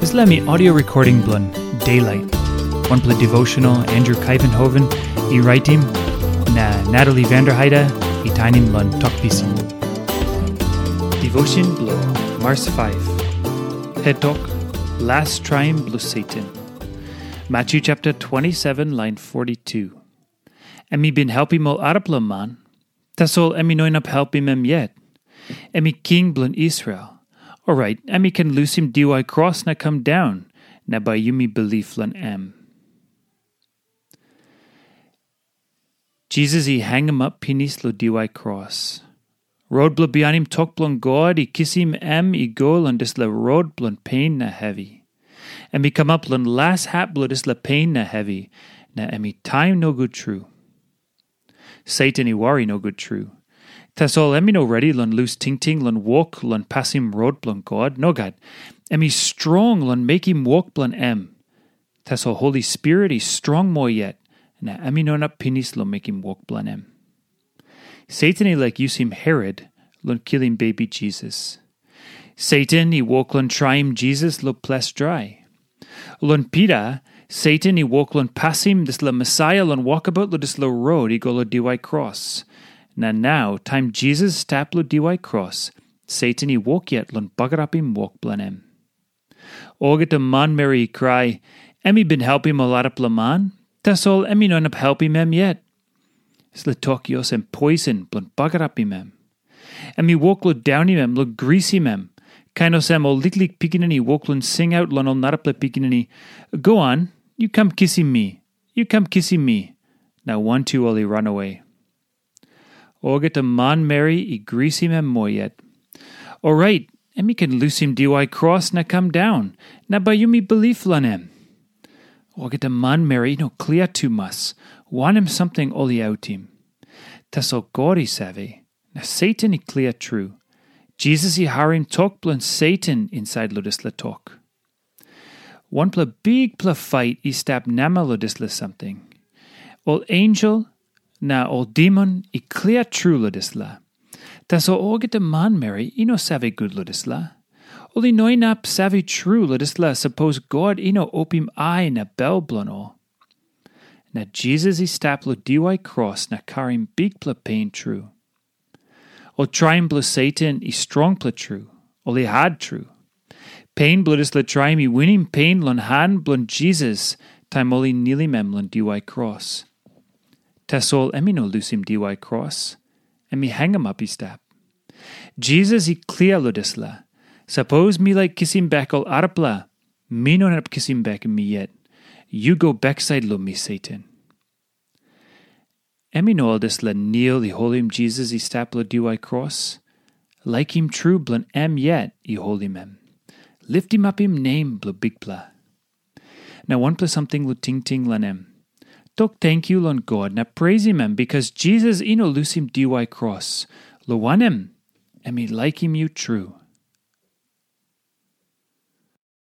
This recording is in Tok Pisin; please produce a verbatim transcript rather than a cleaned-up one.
Dispela em i audio recording bilong Daylight, wanpela devotional Andrew Kaivenhoven i raitim, na Natalie Vanderheide i tainim long Tok Pisin. Devotion bilong Mars five. Het tok, Las traim bilong Satan. Matthew chapter twenty-seven, line forty-two. Em i bin helpim ol arapela man, tasol em i no inap helpim em yet. Em i king bilong Israel. Orait, em i ken lusim diwai kros na kam daun, na bai yumi bilip long em. Jisas i hangamap pinis long diwai kros. Rot bilong bihainim tok bilong God i kisim em i go long dispela rot bilong pen na hevi. Em i kamap long las hap bilong dispela pen na hevi, na em i taim nogut tru. Satan i wari nogut tru. Tasol em i no redi long lus tingting long wok long pasim rot bilong God. Nogat. Em i strong long mekim wok bilong em. Tasol Holi Spirit i strong moa yet, na em i no inap pinis long mekim wok bilong em. Satan i laik yusim Herot long kilim bebi Jisas. Satan i wok long traim Jisas long ples drai. Long Pita, Satan i wok long pasim dispela Mesaia long wokabaut long dispela rot i go long diwai kros. Na nau, taim Jisas i stap long diwai kros, Satan i wok yet long bagarapim wok bilong em. Olgeta manmeri i krai, em i bin helpim ol arapela man, tasol em i no inap helpim em yet. Dispela tok i olsem poisin bilong bagarapim em. Em i wok long daunim em, long grisim em, kain olsem ol liklik pikinini i wok long singaut long ol narapela pikinini, "Goan, yu kam kisim mi, yu kam kisim mi." Na wantu ol i ranawe. Olgeta manmeri i grisim em moa yet. Orait, em i ken lusim diwai kros na kam daun, na bai yumi bilip long em. Olgeta manmeri i no klia tumas wanem samting ol i autim. Tasol God i save, na Satan i klia tru. Jisas i harim tok bilong Satan insait long dispela tok. Wanpela bikpela fait i stap namel long dispela samting. Ol ensel na ol demon i klia tru long dispela. Tasol olgeta manmeri i no save gut long dispela. Ol i no inap save tru long dispela sapos God i no opim ai na bel bilong ol. Na Jisas i stap long diwai kros na karim bikpela pen tru. Ol traim bilong Satan i strongpela tru, ol i hat tru. Pen bilong dispela traim i winim pen long han bilong Jisas taim ol i nilim em long diwai kros. Tasol em i no lusim diwai kros, em i hangamap i stap. Jisas i klia long dispela, "Sapos mi laik kisim bek ol arapela, mi no inap kisim bek mi yet. Yu go baksait long mi, Satan." Em i no ol dispela nil i holim Jisas i stap long diwai kros. Laikim tru bilong em yet i holim em. Liftimapim nem bilong Bikpela. Na wanpela samting long tingting long em. Tok tenkyu long God na preisim em, bikas Jisas i no lusim diwai kros, long wanem, em i laikim yu tru.